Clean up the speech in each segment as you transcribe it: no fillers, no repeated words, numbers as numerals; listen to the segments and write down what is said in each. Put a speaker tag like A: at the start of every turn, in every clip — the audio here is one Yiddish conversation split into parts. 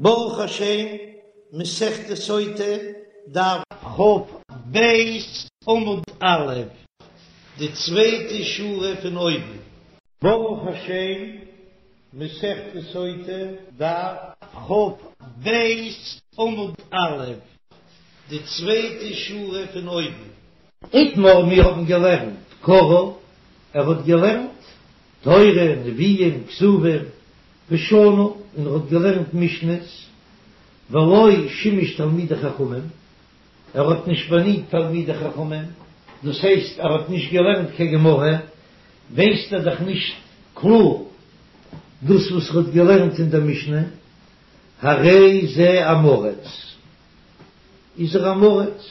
A: ברוך השם, מסכת סוטה, דף כ"ב עמוד א', די צווייטע שורה פון אויבן. ברוך השם, מסכת סוטה, דף כ"ב עמוד א', די צווייטע שורה פון אויבן. איתמר, מיר האבן געלערנט קרא, ער האט געלערנט תורה, נביאים, כתובים, ושנה, און ער האט געלערנט משניות, ולא שימש תלמידי חכמים, ער האט נישט באדינט תלמידי חכמים, דאס הייסט ער האט נישט געלערנט קיין גמרא, ווייסט ער דאך נישט קלאר דאס וואס ער האט געלערנט אין דער משנה, הרי זה עם הארץ, איז ער עם הארץ,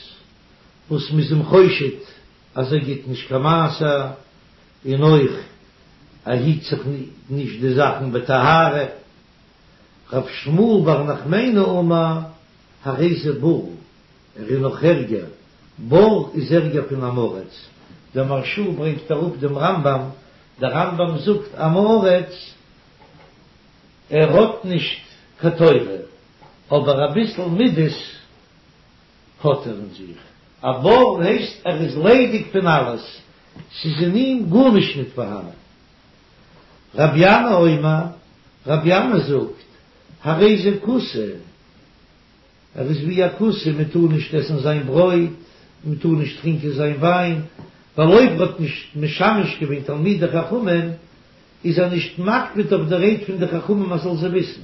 A: וואס מ'איז אים חושד אז ער גיט נישט קיין מעשר, און אויך ער היט זיך נישט די זאכן בטהרה. רב שמואל בר נחמני אמר, הרי זה בור, ער איז נאך ערגער, בור איז ערגער פון עם הארץ, דער מהרש"א ברענגט אראפ דעם רמב"ם, דער רמב"ם זאגט עם הארץ, ער האט נישט קיין תורה, אבער אביסל מידות האט ער אין זיך. א בור הייסט ער איז ליידיג פון אלעס, ס'איז אין אים גארנישט ניט פארהאנען. רבי ינאי אומר, רבי ינאי זאגט, הרי זה כותי, ער איז ווי א כותי, מען טאר נישט עסן זיין ברויט, מען טאר נישט טרינקען זיין וויין, ווייל אויב ער האט נישט משמש געווען תלמידי חכמים, איז ער נישט מקפיד אויף די רייד פון די חכמים אז זאל זיי וויסן.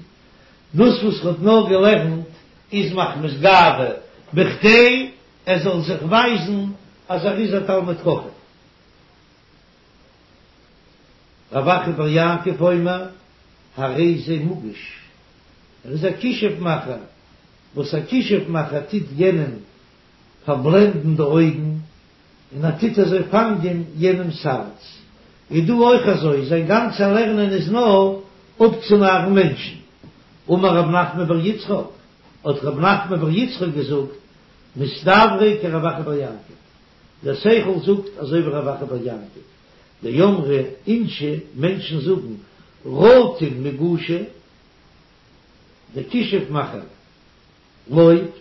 A: דאס וואס ער האט נאר געלערנט איז מחמת גאווה, בכדי ער זאל זיך ווייזן אז ער איז א תלמיד חכם. רב אחא בר יעקב אומר, הרי זה מגוש, ער איז א כישוף מאכער, וואס א כישוף מאכער טוט יענעם פארבלענדן די אויגן, און ער טוט אזוי פאנגען יענעמ'ס הארץ, איז דא אויך אזוי, זיין גאנצע לערנען איז נאר אפצונארן מענטשן. אמר רב נחמן בר יצחק, האט רב נחמן בר יצחק געזאגט, מסתברא כרב אחא בר יעקב, דער שכל זאגט אזוי ווי רב אחא בר יעקב, דאמרי אינשי, מענטשן זאגן, רטין מגושא, דער כישוף מאכער לויבט,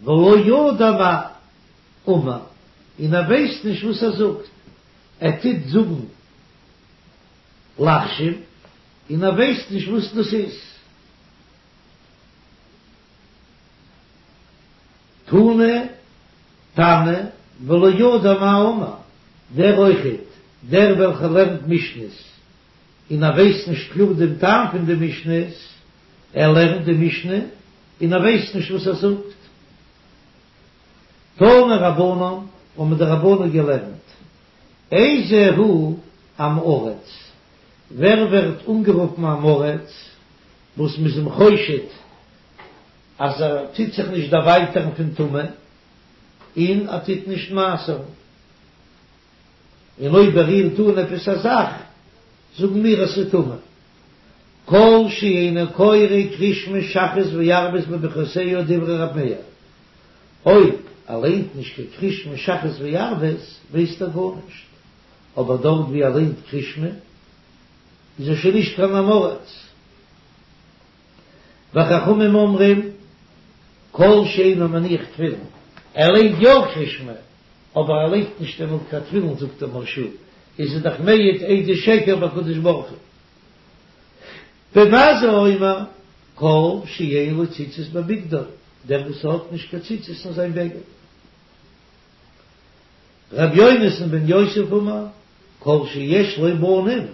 A: ולא ידע מאי אמר, און ער ווייסט נישט וואס ער זאגט, ער טוט זאגן לחשים און ער ווייסט נישט וואס דאס איז. תני תנא ולא ידע מאי אמר, דער אויכעט, דער וועלכער לערנט משניות און ער ווייסט נישט קלאר דעם טעם פון די משניות, ער לערנט די משנה און ער ווייסט נישט וואס ער זאגט. תנו רבנן, האבן די רבנן געלערנט, איזהו עם הארץ, ווער ווערט אנגערופן עם הארץ, וואס מ'איז אים חושד אז ער טוט זיך נישט דערווייטערן פון טומאה, און ער טוט נישט מעשר'ן, און אויב ער רירט אן עפעס א זאך, זאגן מיר אז ס'איז טמא. כל שאינו קורא קריאת שמע שחרית וערבית בברכותיה דברי ר' מאיר, אויב ער ליינט נישט קיין קריאת שמע שחרית וערבית ווייסט ער גארנישט, אבער דארט ווי ער ליינט קריאת שמע איז ער שוין נישט קיין עם הארץ. וחכמים אומרים כל שאינו מניח תפילין, ער ליינט יא קריאת שמע אבער ער לייגט נישט דעמאלט קיין תפילין זאגט דער מהרש"א איז ער דאך מעיד עדות שקר בקדוש ברוך הוא. בן עזאי אומר כל שאין לו ציצית בבגדו, דער וואס האט נישט קיין ציצית אין זיין בגד. ר' יונתן בן יוסף אמר כל שיש לו בנים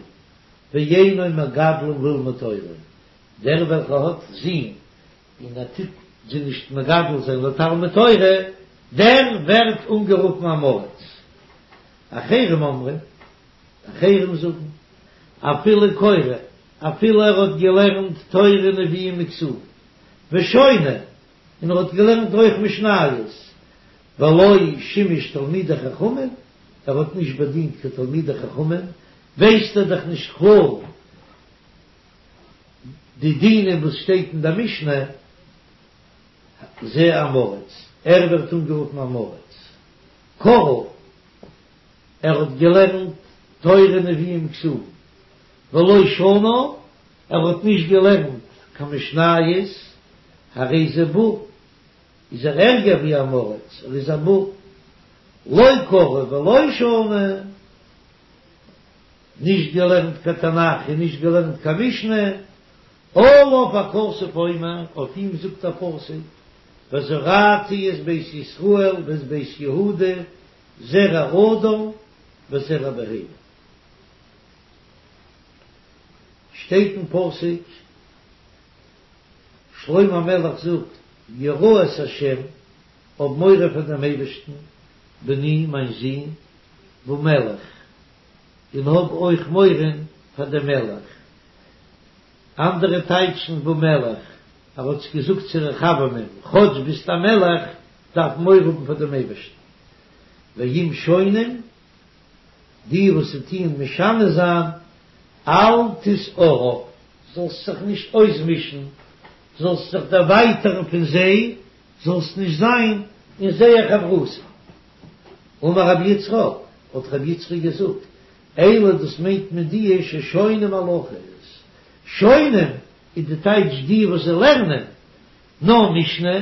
A: ואינו מגדלם ללמוד תורה, דער וועלכער האט זין און ער טוט זיי נישט מגדל זיין לתלמוד תורה, דער ווערט אנגערופן עם הארץ. אחרים אומרים, אחרים זאגן, אפילו קורא, אפילו ער האט געלערנט תורה נביאים וכתובים, ושונה, און ער האט געלערנט אויך משניות, ולא שימש תלמידי חכמים, ער האט נישט באדינט קיין תלמידי חכמים, ווייסט ער דאך נישט קלאר די דינים וואס שטייט אין די משנה, זה עם הארץ, ער ווערט אנגערופן עם הארץ, קרא, ער האט געלערנט תורה נביאים כתובים, ולא שנה, ער האט נישט געלערנט. קיין משניות, הרי זה בור, איז ער ערגער ווי עם הארץ, ער איז א בור. לא קרא ולא שנה, נישט געלערנט קיין תנך און נישט געלערנט קיין משנה, עליו הכתוב אומר, אויף אים זאגט א פסוק, וזרעתי את בית ישראל ואת בית יהודה זרע אדם וזרע בהמה. שטייט אין פסוק, שלמה המלך זאגט, ירא את השם, האב מורא פאר דעם אייבערשטן, בני, מיין זון, ומלך, און האב אויך מורא פאר דעם מלך. אנדערע טייטשן ומלך, ער האט עס געזאגט צו רחבעמען, כאטש ביסט א מלך, דארף מען מורא האבן פאר דעם אייבערשטן. ואם שונים, די וואס טוען משנה זיין, אל תתערב, זאלסט זיך נישט אויסמישן, זאלסט זיך דערווייטערן פון זיי, זאלסט נישט זיין אין זייער חברותא. אמר רבי יצחק, האט רבי יצחק געזאגט, אלו דאס מיינט מען די ששונים הלכות, שונים איז די טייטש די וואס זיי לערנען נאר משנה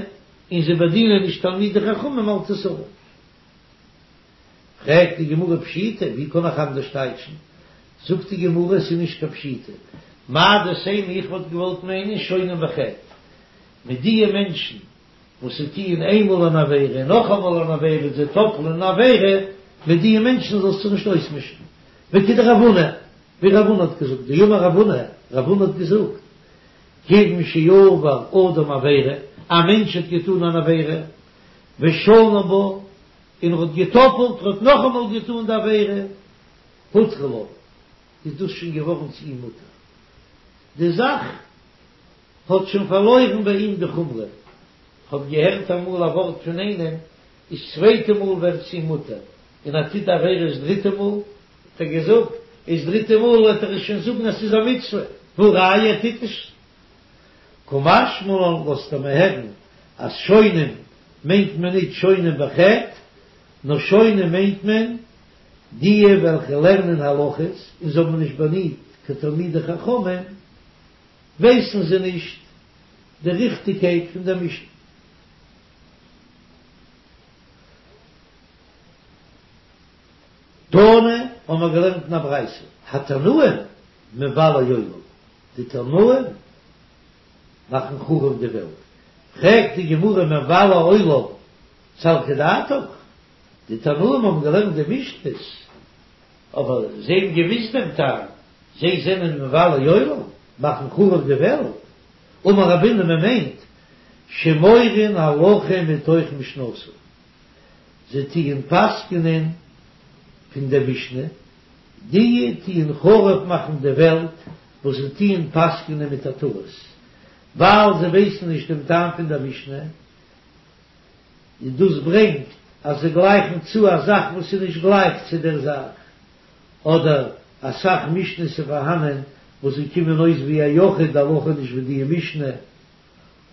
A: און זיי באדינען נישט תלמידי חכמים אל תתערב. פרעגט די גמרא פשיטא, ווי קען איך אנדערש טייטשן? זאגט די גמרא עס איז נישט קיין פשיטא, מהו דתימא איך וואלט געוואלט מיינען שונים בחטא, מיט דיע מענטשן וואס זיי טוען איינמאל אן עבירה און נאכאמאל אן עבירה און זיי טאפלען אן עבירה, מיט דיע מענטשן זאלסטו נישט אויסמישן. וכדרב הונא, ווי רב הונא האט געזאגט, דאמר רב הונא, רב הונא האט געזאגט, כיוון שעבר אדם עבירה, א מענטש האט געטאן אן עבירה, ושנה בה, און ער האט געטאפלט, ער האט נאכאמאל געטאן די עבירה, הותרה לו, איז דאס שוין געווארן צו אים מותר. די זאך האט שוין פארלוירן ביי אים די חומרא. כ'האב געהערט אמאל א ווארט פון איינעם, איז צווייטע מאל ווערט צו אים מותר, און ער טוט די עבירה איז דריטע מאל, האט ער געזאגט, איז דריטע מאל וועט ער עס שוין זאגן אז ס'איז א מצוה, והא ראיה ער טוט עס. קא משמע לן לאזט ער מיר הערן אז שונים מיינט מען ניט שונים בחטא, נאר שונים מיינט מען דיע וועלכע לערנען הלכות און זיי האבן נישט באדינט קיין תלמידי חכמים, ווייסן זיי נישט די ריכטיגקייט פון דער משנה. תנא, האבן מיר געלערנט אין א ברייתא, התנאים מבלי עולם, די תנאים מאכן חרוב די וועלט, פרעגט די גמרא מבלי עולם סלקא דעתך, די תנאים האבן געלערנט די משניות, אבער זיי האבן געוויסט דעם טעם, זיי זענען מבלי עולם, מאכן חרוב די וועלט, אמר רבינא מען מיינט שמורין הלכה מתוך משנתן, זיי טוען פסק'נען פון דער משנה, די טוען חרוב מאכן די וועלט וואס זיי טוען פסק'נען מיט א טעות, ווייל זיי ווייסן נישט דעם טעם פון דער משנה, און דאס ברענגט אז זיי גלייכן צו א זאך וואס איז נישט גלייך צו דער זאך, אדער אסאך משניות איז פארהאנען וואס זיי קומען אויס ווי א יחיד די הלכה נישט ווי די משנה,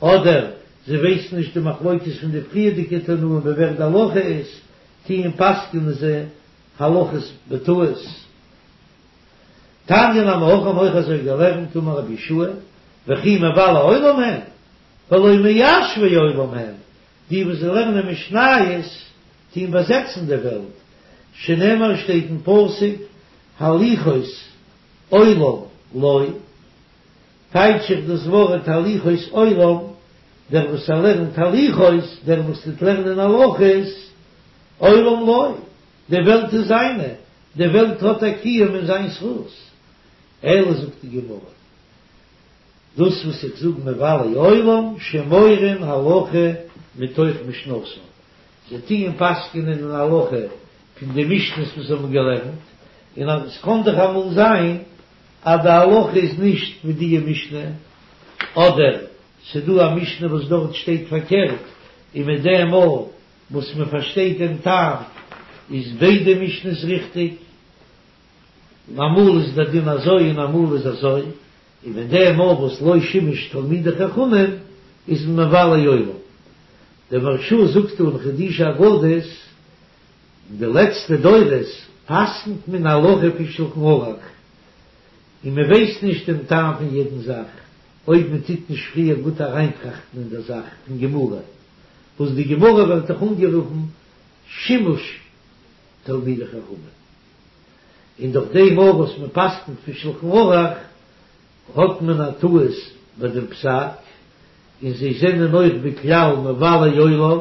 A: אדער זיי ווייסן נישט די מחלוקת פון די פריערדיגע תנאים ווי ווער די הלכה איז, טוען פסק'נען זיי הלכות בטעות. תניא נמי הכי האבן אויך אזוי געלערנט אמר רבי יהושע וכי מבלי עולם הן והלא מיישבי עולם הם, די וואס זיי לערנען משניות טוען באזעצן די וועלט, שנאמר שטייט אין פסוק הליכות עולם לו, טייטש איך דאס ווארט הליכות עולם, דער וואס ער לערנט הליכות, דער וואס טוט לערנען הלכות, עולם לו, די וועלט איז זיינע, די וועלט האט א קיום אין זיין זכות. אלא זאגט די גמרא, דאס וואס איך זאג מבלי עולם שמורין הלכה מתוך משנתן, זיי טוען פסק'נען אין הלכה פון די משניות וואס זיי האבן געלערנט, און אז עס קען דאך אמאל זיין אז די הלכה איז נישט ווי די משנה, אדער ס'דא א משנה וואס דארט שטייט פארקערט, און מיט דעם מאל וואס מען פארשטייט דעם טעם איז ביידע משניות ריכטיג, און אמאל איז דער דין אזוי און אמאל איז אזוי, און מיט דעם מאל וואס לא שימש תלמידי חכמים איז מען מבלי עולם. דער מהרש"א זאגט אין חידושי אגדות, אין די לעצטע דורות פסק'נט מען הלכה פון שלחן ערוך, און מען ווייסט נישט דעם טעם פון יעדן זאך. אויב מען טוט נישט פריער גוט אריינטראכטן אין דער זאך פון גמרא, וואס די גמרא ווערט דאך אנגערופן שימוש תלמידי חכמים, און דורך דעם אויך וואס מען פסק'נט פון שלחן ערוך האט מען א טעות ביי דעם פסק, און זיי זענען אויך בכלל מבלי עולם,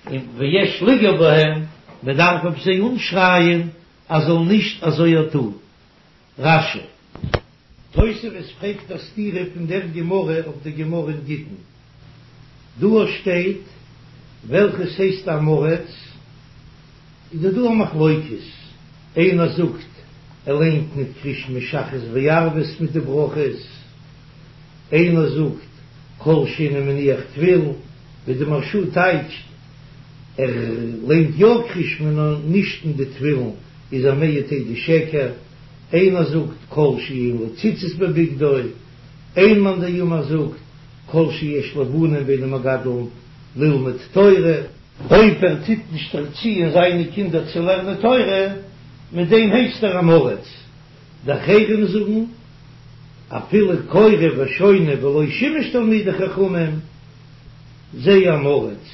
A: און ויש לגעור בהם, מען דארף אויף זיי אנשרייען אז זאל נישט אזוי טון. רש"י. תוספות פרעגט א סתירה פון דער גמרא אויף די גמרא אין גיטין. דא שטייט וועלכעס הייסט עם הארץ, איז דא דא א מחלוקת, איינער זאגט ער ליינט ניט קריאת שמע שחרית וערבית מיט די ברכות, איינער זאגט כל שאינו מניח תפילין, ווי די מהרש"א טייטשט ער ליינט יא קריאת שמע נאר נישט אין די תפילין איז ער מעיד עדות שקר, איינער זאגט כל שאין לו ציצית בבגדו, איין מאן דאמר זאגט כל שיש לו בנים ואינו מגדלן ללמוד תורה. אויב ער טוט נישט ערציען זיינע קינדער צו לערנען תורה, מיט דעם הייסט ער עם הארץ. די אחרים זאגן, אפילו קורא ושונה ולא שימש תלמידי חכמים, זה עם הארץ.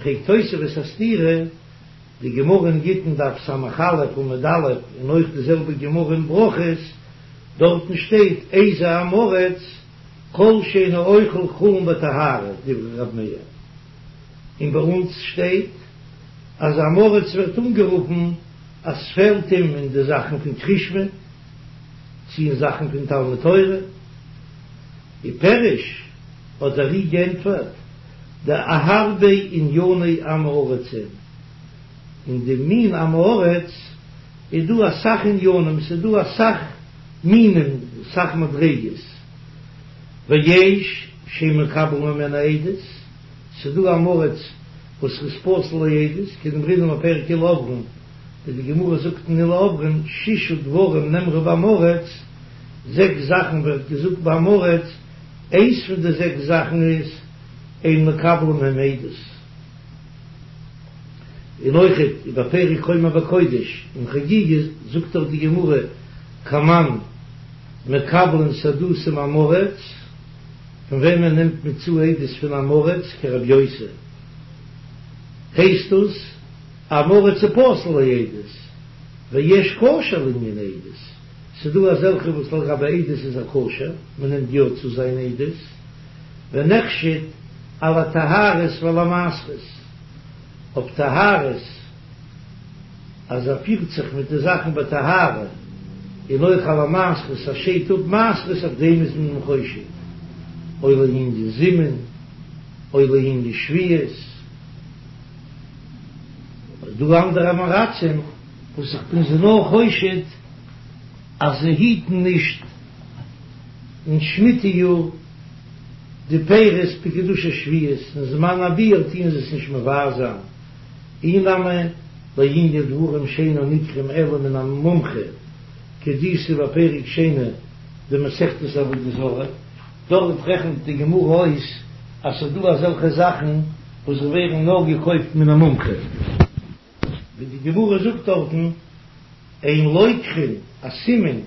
A: פרעגט תוספות א סתירה, די גמרא אין גיטין דף ס"א עמוד א' און אויך די זעלבע גמרא אין ברכות, דארטן שטייט איזה עם הארץ כל שאינו אוכל חולין בטהרה דברי ר' מאיר, און ביי אונז שטייט אז עם הארץ ווערט אנגערופן אז ס'פעלט אים אין די זאכן פון קריאת שמע צי אין זאכן פון תלמוד תורה, ופירש האט דער ר"י גענטפערט דהרבה ענייני עם הארץ הן, אין די מין עם הארץ איז דא אסאך עניינים, ס'איז דא אסאך מינים, אסאך מדריגות, ויש שאין מקבלין ממנו עדות, ס'איז דא עם הארץ וואס איז פסול לעדות, כדאמרינן בפרק אלו עוברין, ווי די גמרא זאגט אין אלו עוברין, שישה דברים נאמרו בעם הארץ, זעקס זאכן ווערט געזאגט ביי עם הארץ, איינס פון די זעקס זאכן איז אין מקבלין מהם עדות. און אויכעט בפרק חומר בקודש אין חגיגה זאגט דאך די גמרא כמאן מקבלין סהדותא מעם הארץ, פון וועמען נעמט מען צו עדות פון עם הארץ כרבי יוסי, הייסט דאס עם הארץ איז פסול לעדות, ויש כשר לענין עדות, ס'דא אזעלכע וואס לגבי עדות איז ער כשר, מ'נעמט יא צו זיין עדות. ונחשד על הטהרות ועל המעשרות, אויף טהרות אז ער פירט זיך מיט די זאכן בטהרה, און אויך על המעשרות אז שיידט אפ מעשרות אויף דעם איז מען חושד, או לענין זימון, או לענין שביעית. דא אנדערע עם הארצים וואס איך בין זיי נאר חושד אז זיי היטן נישט אין שמיטה יאר די פירות בקדושת שביעית, אין זמן הביעור טוען זיי עס נישט מבער זיין, אי נמי לענין דברים שאינם ניקחים אלא מן המומחה כדאיתא בפרק שני דמסכת עבודה זרה, דארט רעכנט די גמרא אויס אז ס'איז דא אזעלכע זאכן וואס ווערן נאר געקויפט מן המומחה. ווי די גמרא זאגט דארטן, אין לוקחין א סימן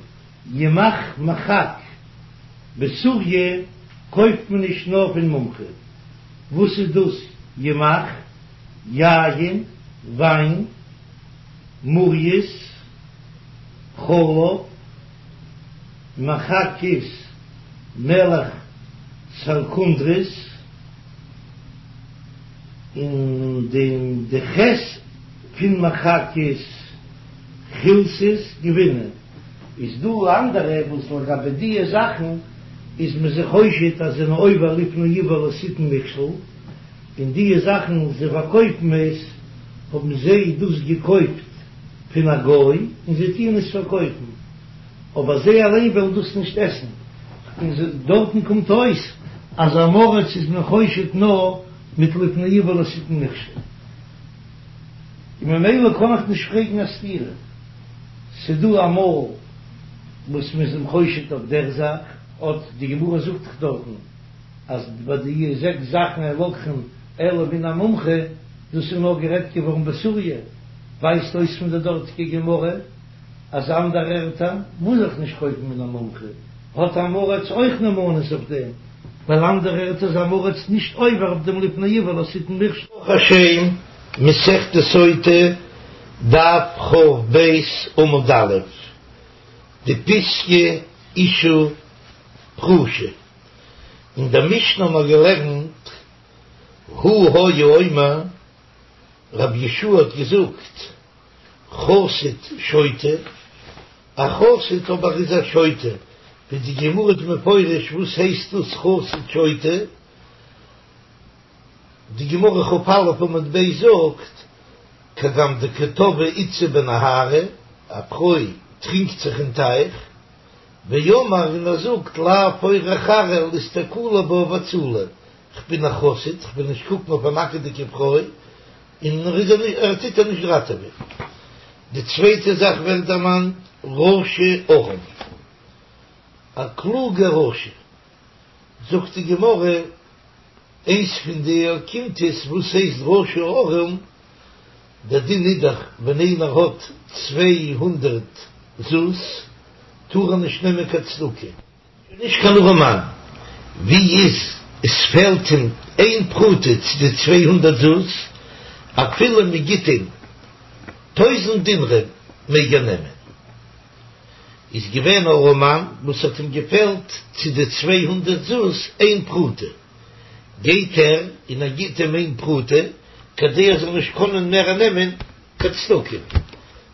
A: ימח מחק בסוריא קויפט מען נישט נאר פון מומחה, וואס איז דאס ימח? יין, וויין, מורייס, חלב, מחק איז מלח סלקונדרית. און די ח' פון מחק איז חילתית גבינה, איז דא אנדערע וואס לגבי דיע זאכן איז מען זיי חושד אז זענען עובר לפני עור לא תתן מכשול, און דיע זאכן זיי פארקויפן עס האבן זיי דאס געקויפט פון א גוי און זיי טוען עס פארקויפן. אבער זיי אליין וועלן דאס נישט עסן, און דארטן קומט אויס אז עם הארץ איז מען חושד נאר מיט לפני עור לא תתן מכשול, און ממילא קען איך נישט פרעגן א סתירה, ס'דא אמאל וואס מ'איז אים חושד אויף דער זאך, אט די גמרא זאגט דאך דארטן אז ביי די זעקס זאכן אין לוקחין אלא מן המומחה, דאס איז נאר גערעדט געווארן בסוריא, ווייזט אויס פון די דארטיגע גמרא. אז אנדערע ערטער מוז איך נישט קויפן מן המומחה. האט עם הארץ אויך נאמנות אויף דעם, ווייל אנדערע ערטער איז עם הארץ נישט עובר אויף דעם לפני עור לא תתן מכשול. ברוך השם, מסכת סוטה, דף כ"ב עמוד א', די פיסקא אשה פרושה. אין דער משנה האבן מיר געלערנט, הוא היה אומר, רבי יהושע האט געזאגט, חסיד שוטה, א חסיד אבער איז א שוטה, ווי די גמרא איז מפרש וואס הייסט דאס חסיד שוטה, די גמרא כ"א עמוד ב' זאגט, כגון דקא טבעה איתתא בנהרא, א פרוי טרינקט זיך אין טייך, ואמר און ער זאגט לאו אורח ארעא לאיסתכולי בה ואצולה, כ'בין א חסיד, כ'וויל נישט קוקן אויף א נאקעדיגע פרוי, און ער איז ער טוט איר נישט ראטעווען. די צווייטע זאך ווערט דערמאנט רשע ערום, א קלוגע רשע, זאגט די גמרא, איינס פון די אוקימתות וואס הייסט רשע ערום, דער דין איז דאך ווען איינער האט 200 זוז טאר ער נישט נעמען קיין צדקה, נישט קיין ארעמאן, ווי איז עס פעלט אים איין פרוטה צו די 200 זוז, אפילו מען גיט אים טויזנט דינרים מעג ער נעמען. איז געווען א ארעמאן וואס האט אים געפעלט צו די 200 זוז איין פרוטה, גייט ער און ער גיט אים איין פרוטה כדי ער זאל נישט קענען מער נעמען קיין צדקה,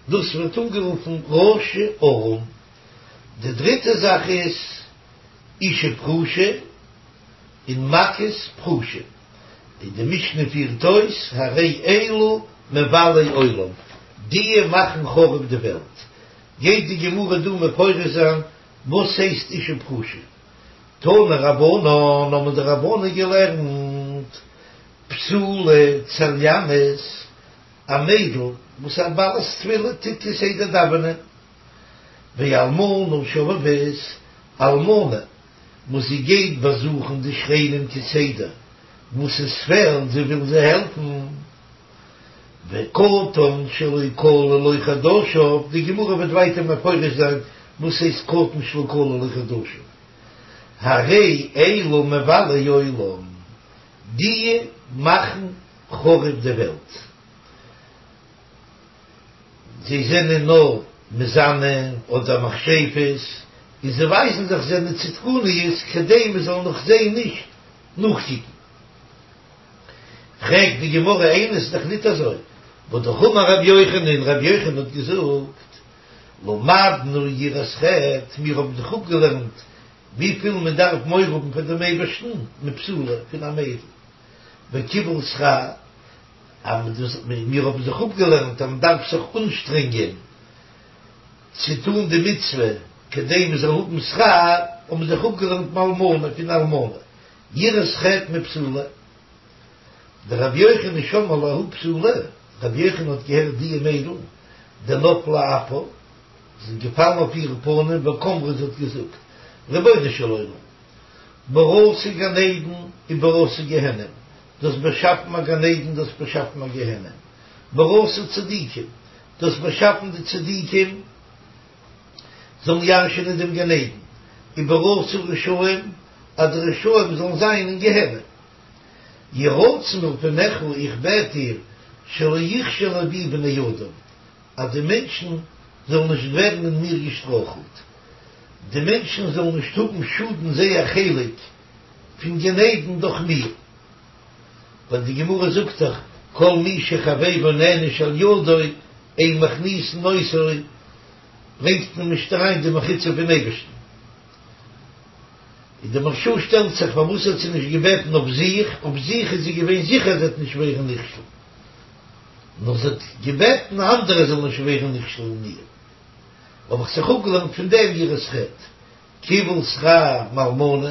A: דאס ווערט אנגערופן רשע ערום. די דריטע זאך איז אשה פרושה און מכות פרושים, און די משנה פירט אויס הרי אלו מבלי עולם, דיע מאכן חרוב די וועלט. גייט די גמרא דא מפרש זיין וואס הייסט אשה פרושה. תנו רבנן האבן די רבנן געלערנט בתולה צליינית, א מיידל וואס א בעלת תפילה טוט כסדר דאווענען, ואלמנה שובבית, אלמנה וואס זי גייט באזוכן די שכנים כסדר וואס עס פעלט, זי וויל זיי העלפן, וקטן שלא כלו לו חדשיו, די גמרא וועט ווייטער מפרש זיין וואס הייסט קטן שלא כלו לו חדשיו, הרי אלו מבלי עולם, דיע מאכן חרוב די וועלט. זיי זענען נאר מזנה אדער מכשפות, און זיי ווייזן זיך זענען צדקניות כדי מען זאל נאך זיי נישט נאכקוקן. פרעגט די גמרא איני ס'איז דאך ניט אזוי, והא אמר רבי יוחנן, רבי יוחנן האט געזאגט, למדנו יראת חטא, מיר האבן זיך אפגעלערנט וויפיל מען דארף מורא האבן פאר דעם אייבערשטן, מבתולה, פון א מיידל, וקיבול שכר, אז מיר האבן זיך אפגעלערנט אז מען דארף זיך אנשטרענגען צו טון די מצוה כדי מען זאל האבן שכר, האבן מיר זיך אפגעלערנט מאלמנה פון אלמנה, יראת חטא מבתולה. דרבי יוחנן שמעה לההיא בתולה, רבי יוחנן האט געהערט דיע מיידל, דנפלה אפה, זי איז געפאלן אויף איר פנים, וקאמרה זי האט געזאגט, רבונו של עולם, בראת גן עדן ובראת גיהנם, דו האסט באשאפן א גן עדן, דו האסט באשאפן א גיהנם, בראת צדיקים, דו האסט באשאפן די צדיקים זאלן ירש'ענען דעם גן עדן, ובראת רשעים, אז די רשעים זאלן זיין אין גיהנם. יהי רצון מלפניך, איך בעט דיר, שלא יכשלו בי בני אדם, אז די מענטשן זאלן נישט ווערן אין מיר געשטרויכלט, די מענטשן זאלן נישט האבן שאדן זייער חלק פון גן עדן דורך מיר, ווייל די גמרא זאגט דאך כל מי שחבירו נענש על ידו אין מכניסין אותו, ברענגט מען נישט אריין די מחיצה פון אייבערשטן. און די מהרש"א שטעלט זיך פארוואס האט זי נישט געבעטן אויף זיך, אויף זיך איז זי געווען זיכער זי וועט נישט ווערן נכשל, נאר זי האט געבעטן אנדערע זאלן נישט ווערן נכשל אין איר, האב איך זיך אפגעלערנט פון דעם יראת חטא. קיבול שכר מאלמנה,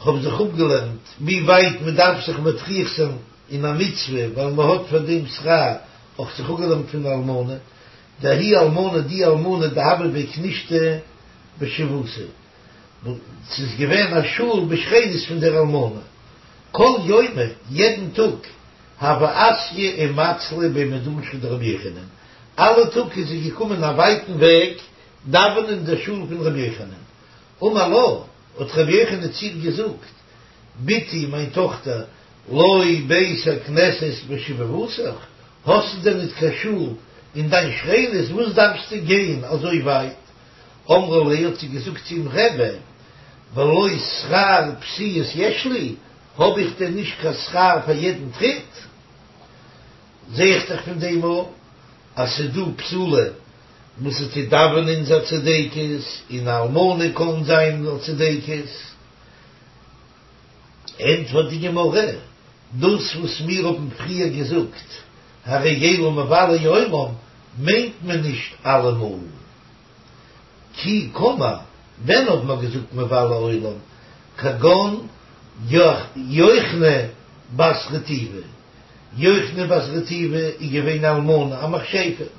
A: כ'האב זיך אפגעלערנט ווי ווייט מען דארף זיך מטריח זיין אין א מצוה ווייל מען האט פאר דעם שכר, האב איך זיך אפגעלערנט פון אלמנה, דההיא אלמנה די אלמנה דהוה בי כנישתא בשבבותיה, ס'איז געווען א שול בשכנות פון דער אלמנה, כל יומא יעדן טאג הוה אתיא ומצלא בי מדרשא דרבי יוחנן, אלע טאג איז זי געקומען א ווייטן וועג דאווענען אין דער שול פון רבי יוחנן. אמר לה, האט רבי יוחנן צו איר געזאגט, בתי, מיין טאכטער, לא בית הכנסת בשבבותיך, האסטו דען ניט קיין שול אין דיין שכנות, וואס דארפסטו גיין אזוי ווייט? אמרה ליה, האט זי געזאגט צו אים, רבי, ולא שכר פסיעות יש לי, האב איך דען נישט קיין שכר פאר יעדן טריט? זע איך דאך פון דעם אויך אז ס'איז דא בתולה וואס זי טוט דאווענען איז א צדקת, און א אלמנה קען זיין א צדקת. ענטפערט די גמרא, דאס וואס מיר האבן פריער געזאגט הרי אלו מבלי עולם מיינט מען נישט אלעמאל. כי קאמר, ווען האט מען געזאגט מבלי עולם, כגון יוחני בת רטיבי, יוחני בת רטיבי איז געווען א אלמנה א מכשפה,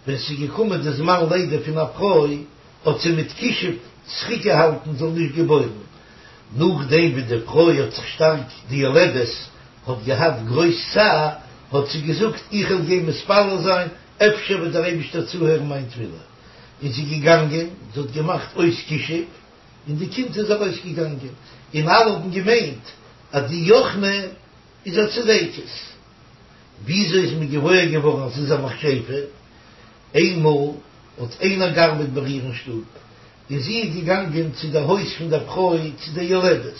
A: ווען ס'איז געקומען די זמן לידה פון א פרוי האט זי מיט כישוף צוריקגעהאלטן זאל נישט געבוירן, נאכדעם ווי די פרוי האט זיך שטארק די יולדת האט געהאט גרויס צער האט זי געזאגט איך וועל גיין מתפלל זיין אפשר וועט דער אייבישטער צוהערן מיין תפילה, איז זי געגאנגען, זי האט געמאכט אויס כישוף, און די קינד איז ארויסגעגאנגען, און אלע האבן געמיינט אז די יוחני איז א צדקת. וויאזוי איז מען געוואויר געווארן אז זי איז א מכשפה? איינמאל האט איינער געארבעט ביי איר אין שטוב, און זי איז געגאנגען צו דער הויז פון דער פרוי צו דער יולדת.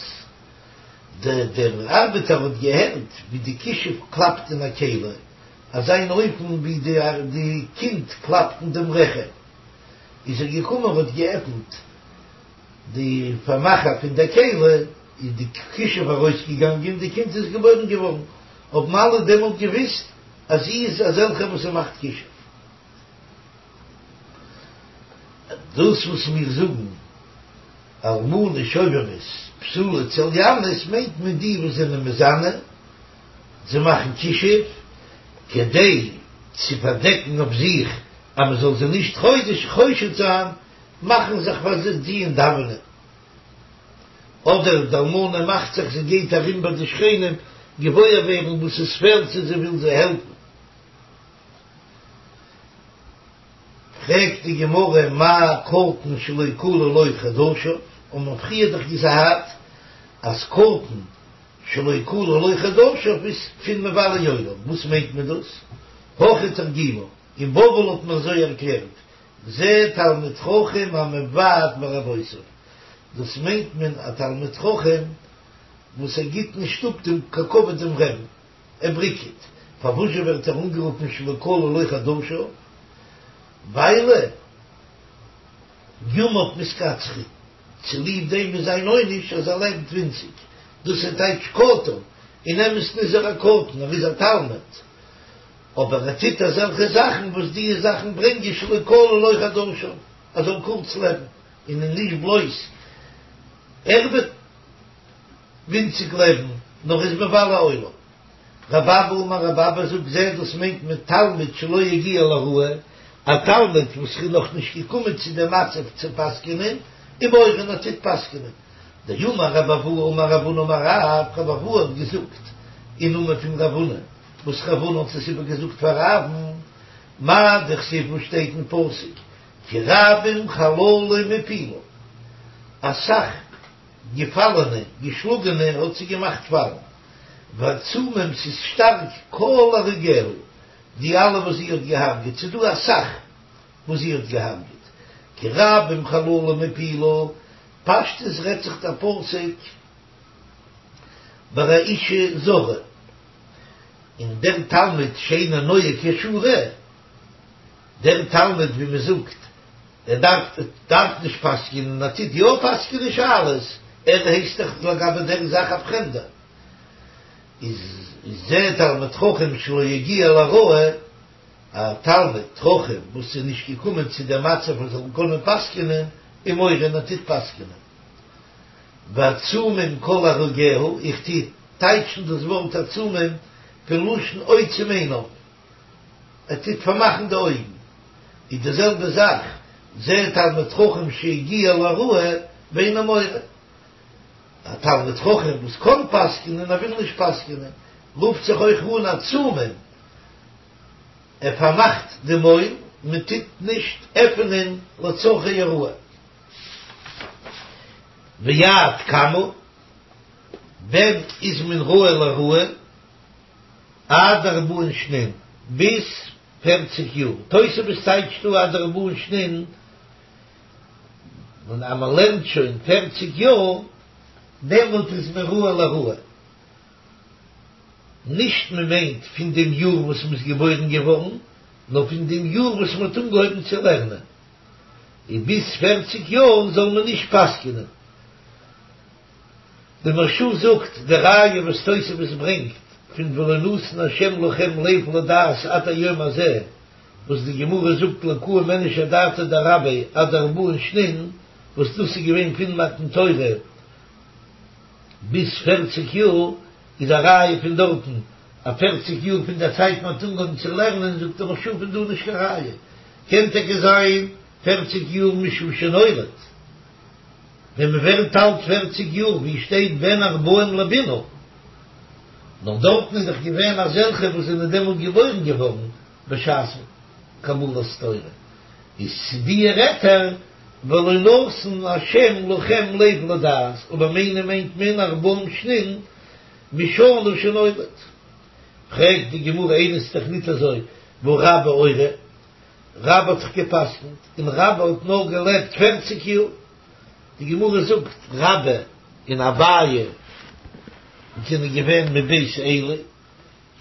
A: דער דער ארבעטער האט געהערט ווי די כישוף קלאפט אין א כלי, אזא אן אופן ווי די די קינד קלאפט אין דעם רחם. איז ער געקומען האט געעפנט די פארמאכער פון דער כלי, איז די כישוף ארויסגעגאנגען, די קינד איז געבוירן געווארן. האבן אלע דעמאלט געוויסט אז זי איז אזעלכע וואס זי מאכט כישוף. דאס וואס מיר זאגן אלמנה שובבית בתולה צליינית מיינט מען די וואס זענען מזנה, זיי מאכן כישוף כדי צו פארדעקן אויף זיך אז מען זאל זיי נישט חושד זיין, מאכן זיך פאר זיי טוען דאווענען. אדער די אלמנה מאכט זיך זי גייט ארום ביי די שכנים געוואויר ווערן וואס עס פעלט צו זי וויל זיי העלפן. פרעגט די גמרא מאי קטן שלא כלו לו חדשיו, האבן מיר פריער דאך געזאגט אז קטן שלא כלו לו חדשיו איז פון מבלי עולם, וואס מיינט מען דאס? הכי תרגימו, אין בבל האט מען אזוי ערקלערט, זה תלמיד חכם המבעט ברבותיו, דאס מיינט מען א תלמיד חכם וואס ער גיט נישט אפ דעם כבוד דעם רעבן, ער בריקעט, פארוואזשע ווערט ער אנגערופן שלא כלו לו חדשיו? ווייל ימיו מתקצרין, צוליב דעם איז זיין עונש אז ער לעבט ווינציג, דאס איז טייטש קטן, אין אמת'ן איז ער א קטן, ער איז א תלמיד, אבער ער טוט אזעלכע זאכן וואס די זאכן ברענגען שלא כלו לו חדשיו, ער זאל קורץ לעבן, און נישט בלויז ער וועט ווינציג לעבן, נאר איז מבלה עולם. רבי אבא אמר רבי אבא זאגט זה דאס מיינט מען תלמיד שלא הגיע להוראה, א תלמיד וואס איז נאך נישט געקומען צו דעם מצב צו פסק'נען, ומורה און ער טוט פסק'נען. דאמר רבי אבהו אמר רב הונא אמר רב, רבי אבהו האט געזאגט אין נאמען פון רב הונא, וואס רב הונא האט עס איבערגעזאגט פאר רב'ן, מאי דכתיב וואס שטייט אין פסוק כי רבים חללים הפילה, אסאך געפאלענע, געשלאגענע האט זי געמאכט פאלן, ועצומים ס'איז שטארק כל הרוגיה, די אלע וואס זי האט געהארגעט, ס'איז דא אסאך וואס זי האט געהארגעט, כי רבים חללים הפילה, פשטות רעדט זיך דער פסוק ביי א אישה זרה, און דער תלמיד שאינו נוהג כשורה, דער תלמיד ווי מען זאגט ער דארף דארף נישט פסק'נען, ער טוט יא פסק'נען שאלות, ער הייסט דאך לגבי דער זאך א פרעמדער, איז זה תלמיד חכם שלא הגיע להוראה, א תלמיד חכם וואס איז נישט געקומען צו דעם מצב ער זאל קענען פסק'נען, ומורה און ער טוט פסק'נען. ועצומים כל הרוגיה, איך טו טייטשן דאס ווארט עצומים פון לשון עוצם עיניו. ער טוט פארמאכן די אויגן, איז די זעלבע זאך, זה תלמיד חכם שהגיע להוראה ואינו מורה, א תלמיד חכם וואס קען פסק'נען ער וויל נישט פסק'נען, רופט זיך אויך אן עצומים, ער פארמאכט די מויל, מען טוט נישט עפענען לצרכי הוראה. ועד כמה, ווען איז מען ראוי להוראה? עד ארבעין שנין, ביז פערציג יאר, תוספות טייטשט דא עד ארבעין שנין, און אז מען לערנט שוין פערציג יאר, דעמאלט איז מען ראוי להוראה. נישט מען מיינט פון דעם יאר וואס מען איז געבוירן געווארן, נאר פון דעם יאר וואס מען האט אנגעהויבן צו לערנען, און ביז פערציג יאר זאל מען נישט פסק'נען. די מהרש"א זאגט, די ראיה וואס תוספות ברענגט פון ולא נתן השם לכם לב לדעת עד היום הזה, וואס די גמרא זאגט לא קאים איניש אדעתיה דרביה עד ארבעין שנין, וואס דאס איז געווען פון מתן תורה ביז פערציג יאר, איז א ראיה פון דארטן אז פערציג יאר פון דער צייט מען האט אנגעהויבן צו לערנען, זאגט דער מהרש"א פון דא נישט קיין ראיה, קען טאקע זיין פערציג יאר משעה שנולד, ווען מען ווערט אלט פערציג יאר, ווי שטייט בן ארבעים לבינה, נאר דארטן איז דאך געווען אזעלכע וואס זענען דעמאלט געבוירן געווארן בשעת קבלת תורה, איז צו די רעדט ער ולא נתן השם לכם לב לדעת, אבער מיינען מיינט מען ארבעים שנין משנה שנולד. פרעגט די גמרא איני ס'איז דאך ניט אזוי והא רבה אורי, רבה האט דאך געפסקנט און רבה האט נאר געלעבט פערציג יאר, די גמרא זאגט רבה און אביי זענען געווען מבית עלי,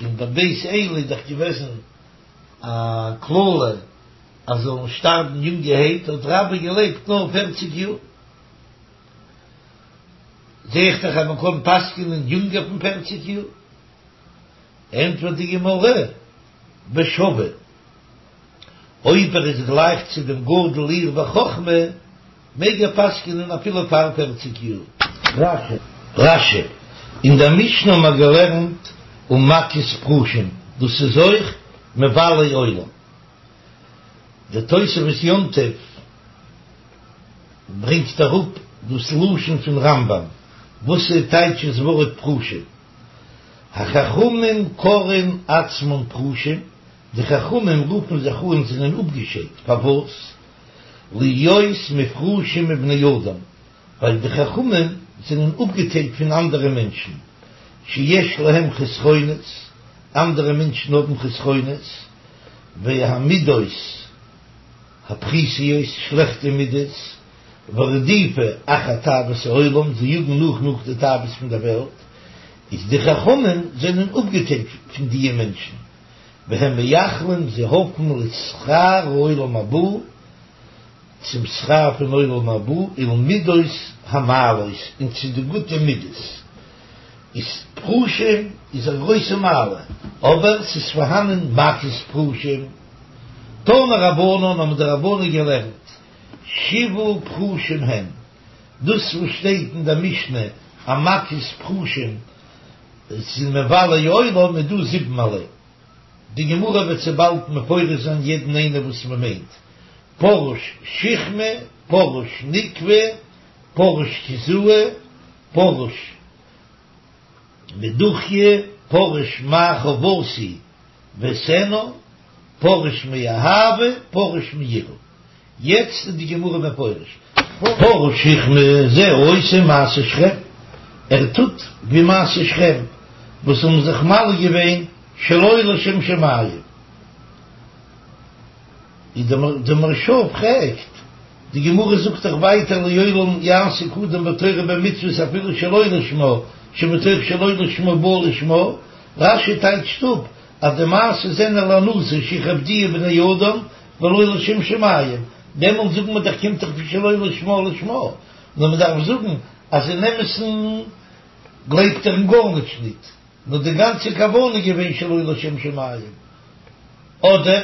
A: און ביי בית עלי איז דאך געוועזן א קללה אז זאלן שטארבן יונגערהייט, האט רבה געלעבט נאר פערציג יאר. זע איך דאך אז מען קען פסק'נען יונגער פון פערציג יאר. ענטפערט די גמרא, בשווה, אויב ער איז גלייך צו דעם גדול העיר בחכמה, מעג ער פסק'נען אפילו פאר פערציג יאר. רש"י, אין דער משנה האבן מיר געלערנט ומכות פרושים, דאס איז אויך מבלי עולם. דער תוספות יום טוב ברענגט אראפ דאס לשון פון רמב"ם, וואס איז טייטש דאס ווארט פרושים? החכמים קורין עצמן פרושים, די חכמים רופן זיך אן זענען אפגעשיידט, פארוואס? להיות מופרשים מבני אדם, ווייל די חכמים זענען אפגעטיילט פון אנדערע מענטשן, שיש להם חסרונות, אנדערע מענטשן האבן חסרונות, והמידות הפחותות, שלעכטע מידות, ורדיפה אחר תאוות העולם, זיי יאגן נאך נאך די תאוות פון דער וועלט, איז די חכמים זענען אפגעטיילט פון דיע מענטשן, והם מייחלים, זיי האפן לשכר העולם הבא, צום שכר פון עולם הבא, ולמידות המעלות, און צו די גוטע מידות. איז פרושים איז א גרויסע מעלה, אבער ס'איז פארהאנען מכות פרושים. תנו רבנן האבן די רבנן געלערנט, שבעה פרושים הם, דאס וואס שטייט אין דער משנה אז מכות פרושים זענען מבלי עולם איז דא זיבן ערליי. די גמרא וועט צו באלד מפרש זיין יעדן איינער וואס מען מיינט, פרוש שכמה, פרוש נקבא, פרוש קיזאי, פרוש מדוכיא, פרוש מה חובתי ואעשנה, פרוש מאהבה, פרוש מיראה. יעצט איז די גמרא מפרש. פרוש שכמה זה העושה מעשה שכם, ער טוט ווי מעשה שכם וואס האבן זיך מל געווען שלא לשם שמים. איז די מהרש"א פרעגט, די גמרא זאגט דאך ווייטער לעולם יעסוק אדם בתורה ובמצוות אפילו שלא לשמה, שמתוך שלא לשמה בא לשמה, רש"י טייטשט אפ אז די מעשה זענען להנאתו שיכבדוהו בני אדם ולא לשם שמים, דעמאלט זאגן מיר דאך קומט דאך פון שלא לשמה לשמה, נאר מען דארף זאגן אז אין אמת'ן גלייבט ער אין גארנישט ניט, נאר די גאנצע כוונה איז געווען שלא לשם שמים, אדער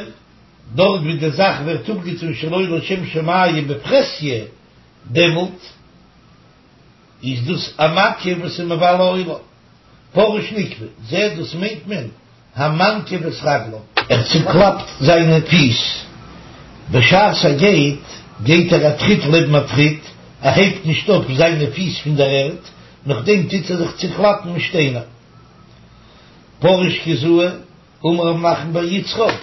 A: דארט ווי די זאך ווערט אפגעטון שלא לשם שמים בפרהסיא, דעמאלט איז דאס א מכה וואס איז מבלה עולם. פרוש נקבא, זה דאס מיינט מען המנקיב את רגליו. ער צוקלאפט זיינע פיס בשעת ער גייט, גייט ער א טריט לעבן א טריט, ער הייבט נישט אויף זיינע פיס פון דער ערד, נאכדעם טוט ער זיך צוקלאפן מיט שטיינער. פרוש קיזאי, אמר רב נחמן בר יצחק,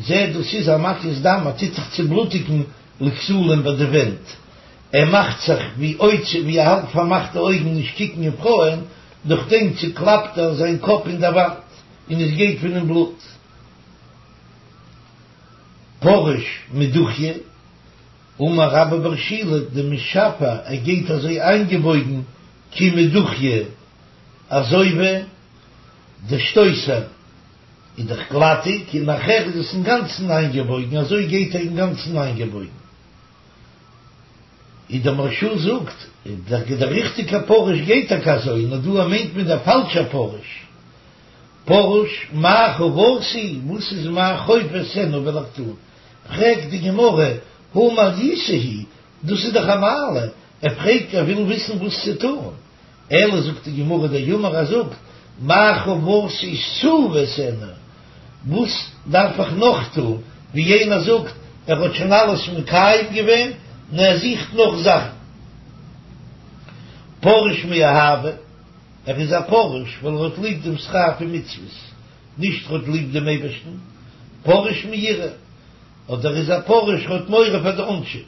A: זה דאס איז המקיז דם, ער טוט זיך צובלוטיגן לכתלים ביי די ווענט. ער מאכט זיך ווי עוצם ווי ער האלט פארמאכט די אויגן נישט קוקן אין פרויען, נאכדעם צוקלאפט ער זיין קאפ אין דער וואנט און עס גייט פון אים בלוט. פרוש מדוכיא, אמר רבה בר שילא דמשפע ער גייט אזוי איינגעבויגן כי מדוכיא אזוי ווי דער שטויסער איז דאך גלאטיג און נאכער איז עס אינגאנצן איינגעבויגן אזוי גייט ער אינגאנצן איינגעבויגן. איז דער מהרש"א זאגט, דער ריכטיגער פרוש גייט טאקע אזוי, נאר דא מיינט מען דער פאלשער פרוש. פרוש מה חובתי, וואס איז מיין חוב אעשנה וועל איך טון? פרעגט די גמרא, הא מעליותא היא, דאס איז דאך א מעלה, ער פרעגט ער וויל וויסן וואס צו טון, אלא זאגט די גמרא דאמר ער זאגט, מה חובתי תו ואעשנה, וואס דארף איך נאך טון, ווי יענער זאגט ער האט שוין אלעס מקיים געווען, נאר ער זוכט נאך זאכן. פרוש מאהבה, ער איז א פרוש ווייל ער האט ליב דעם שכר פון מצוות, נישט ער האט ליב דעם אייבערשטן, פרוש מיראה, אדער ער איז א פרוש ער האט מורא פאר די עונשים.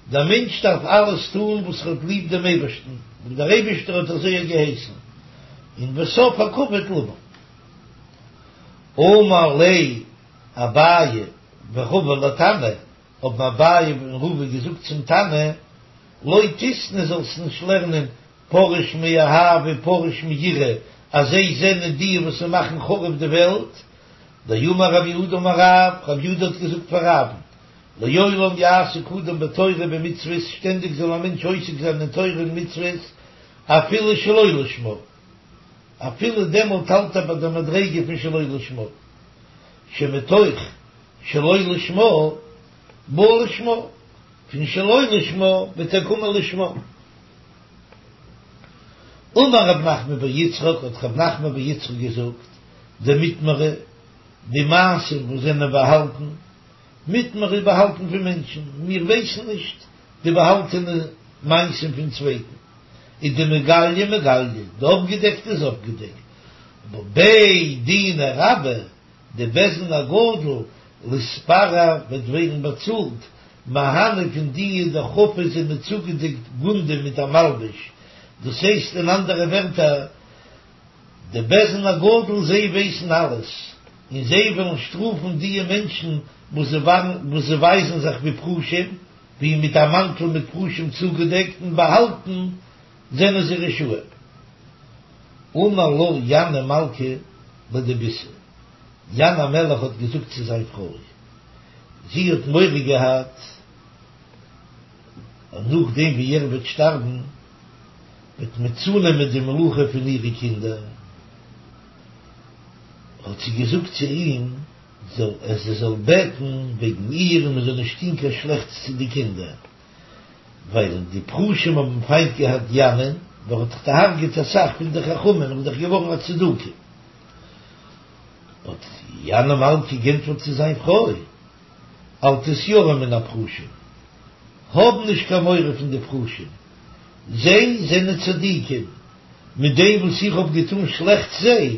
A: דער מענטש דארף אלעס טון וואס ער האט ליב דעם אייבערשטן, ווייל דער אייבערשטער האט אזוי געהייסן, און וסוף הכבוד לבא. אמר ליה אביי ורבא לתנא, האבן אביי און רבא געזאגט צום תנא, לא תיתני זאלסט נישט לערנען פרוש מאהבה פרוש מיראה, אז זיי זענען די וואס מאכן חרוב די וועלט, דאמר רב יהודה אמר רב, רב יהודה האט געזאגט פאר רב'ן, לעולם יעסוק אדם בתורה ובמצוות, שטענדיג זאל א מענטש עוסק זיין אין תורה און מצוות, אפילו שלא לשמה, אפילו דעמאלט האלט ער ביי די מדריגה פון שלא לשמה, שמתוך שלא לשמה בא לשמה, פון שלא לשמה וועט ער קומען לשמה. אמר רב נחמן בר יצחק, האט רב נחמן בר יצחק געזאגט, דמטמרא, די מעשים וואס זענען באהאלטן, מטמרא איז באהאלטן פון מענטשן, מיר ווייסן נישט די באהאלטענע מעשים פון צווייטן, איז דמיגליא מגליא, די אפגעדעקטע איז אפגעדעקט, אבער בי דינא רבה, די בית דין הגדול ליתפרע וועט ווערן באצאלט, מהני פון די דחפו זענען צוגעדעקט גונדא מיט א מלבוש, דאס הייסט אין אנדערע ווערטער, די בית דין הגדול זיי ווייסן אלעס, און זיי וועלן שטראפן דיע מענטשן וואס זיי ווייזן זיך ווי פרושים, ווי מיט א מאנטל מיט פרושים צוגעדעקט און באהאלטן זענען זיי רשעים. אמר לה ינאי מלכא לדביתיה, ינאי המלך האט געזאגט צו זיין פרוי, זי האט מורא געהאט אז נאכדעם ווי ער וועט שטארבן וועט מען צונעמען די מלוכה פון אירע קינדער, האט זי געזאגט צו אים, זאל ער זי זאל בעטן וועגן איר און מען זאל נישט טון קיין שלעכטס צו די קינדער, ווייל די פרושים האבן פיינט געהאט ינאי'ן, ווייל ער האט דאך דערהרגעט אסאך פון די חכמים און איז דאך געווארן א צדוקי. האט ינאי מלכא גענטפערט צו זיין פרוי, אל תתיראי מן הפרושים, האב נישט קיין מורא פון די פרושים, זיי זענען צדיקים, מיט דעם וואס איך האב געטאן שלעכטס זיי,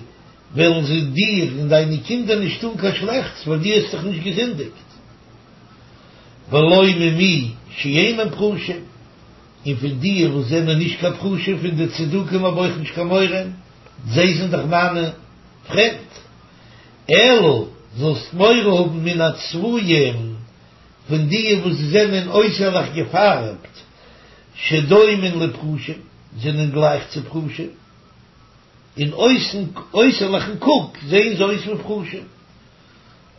A: וועלן זיי דיר און דיינע קינדער נישט טאן קיין שלעכטס, ווייל דו האסט דאך נישט געזינדיגט. ולא ממי שאינם פרושים, און פון די וואס זענען נישט קיין פרושים, פון די צדוקים האב אויך נישט קיין מורא, זיי זענען דאך מיינע פריינט. אלא זאלסט מורא האבן מן הצבועים, פון די וואס זענען אויסערליך געפארבט, שדומין לפרושים, זענען גלייך צו פרושים, אין אויסן אויסערליכן קוק זעען זיי אויס ווי פרושים,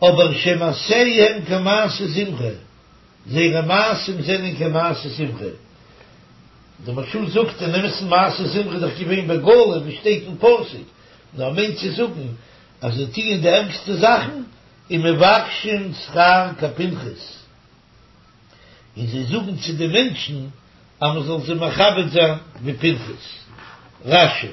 A: אבער שמעשיהם כמעשה זמרי, זייערע מעשים זענען כמעשה זמרי. דער מהרש"א זאגט אין אמת'ן מעשה זמרי איז דאך געווען בגלוי ווי שטייט אין פסוק, נאר מיינט צו זאגן אז זיי טוען די ערגסטע זאכן, ומבקשין שכר כפנחס, און זיי זאגן צו די מענטשן אז מען זאל זיי מכבד זיין ווי פנחס. רש"י.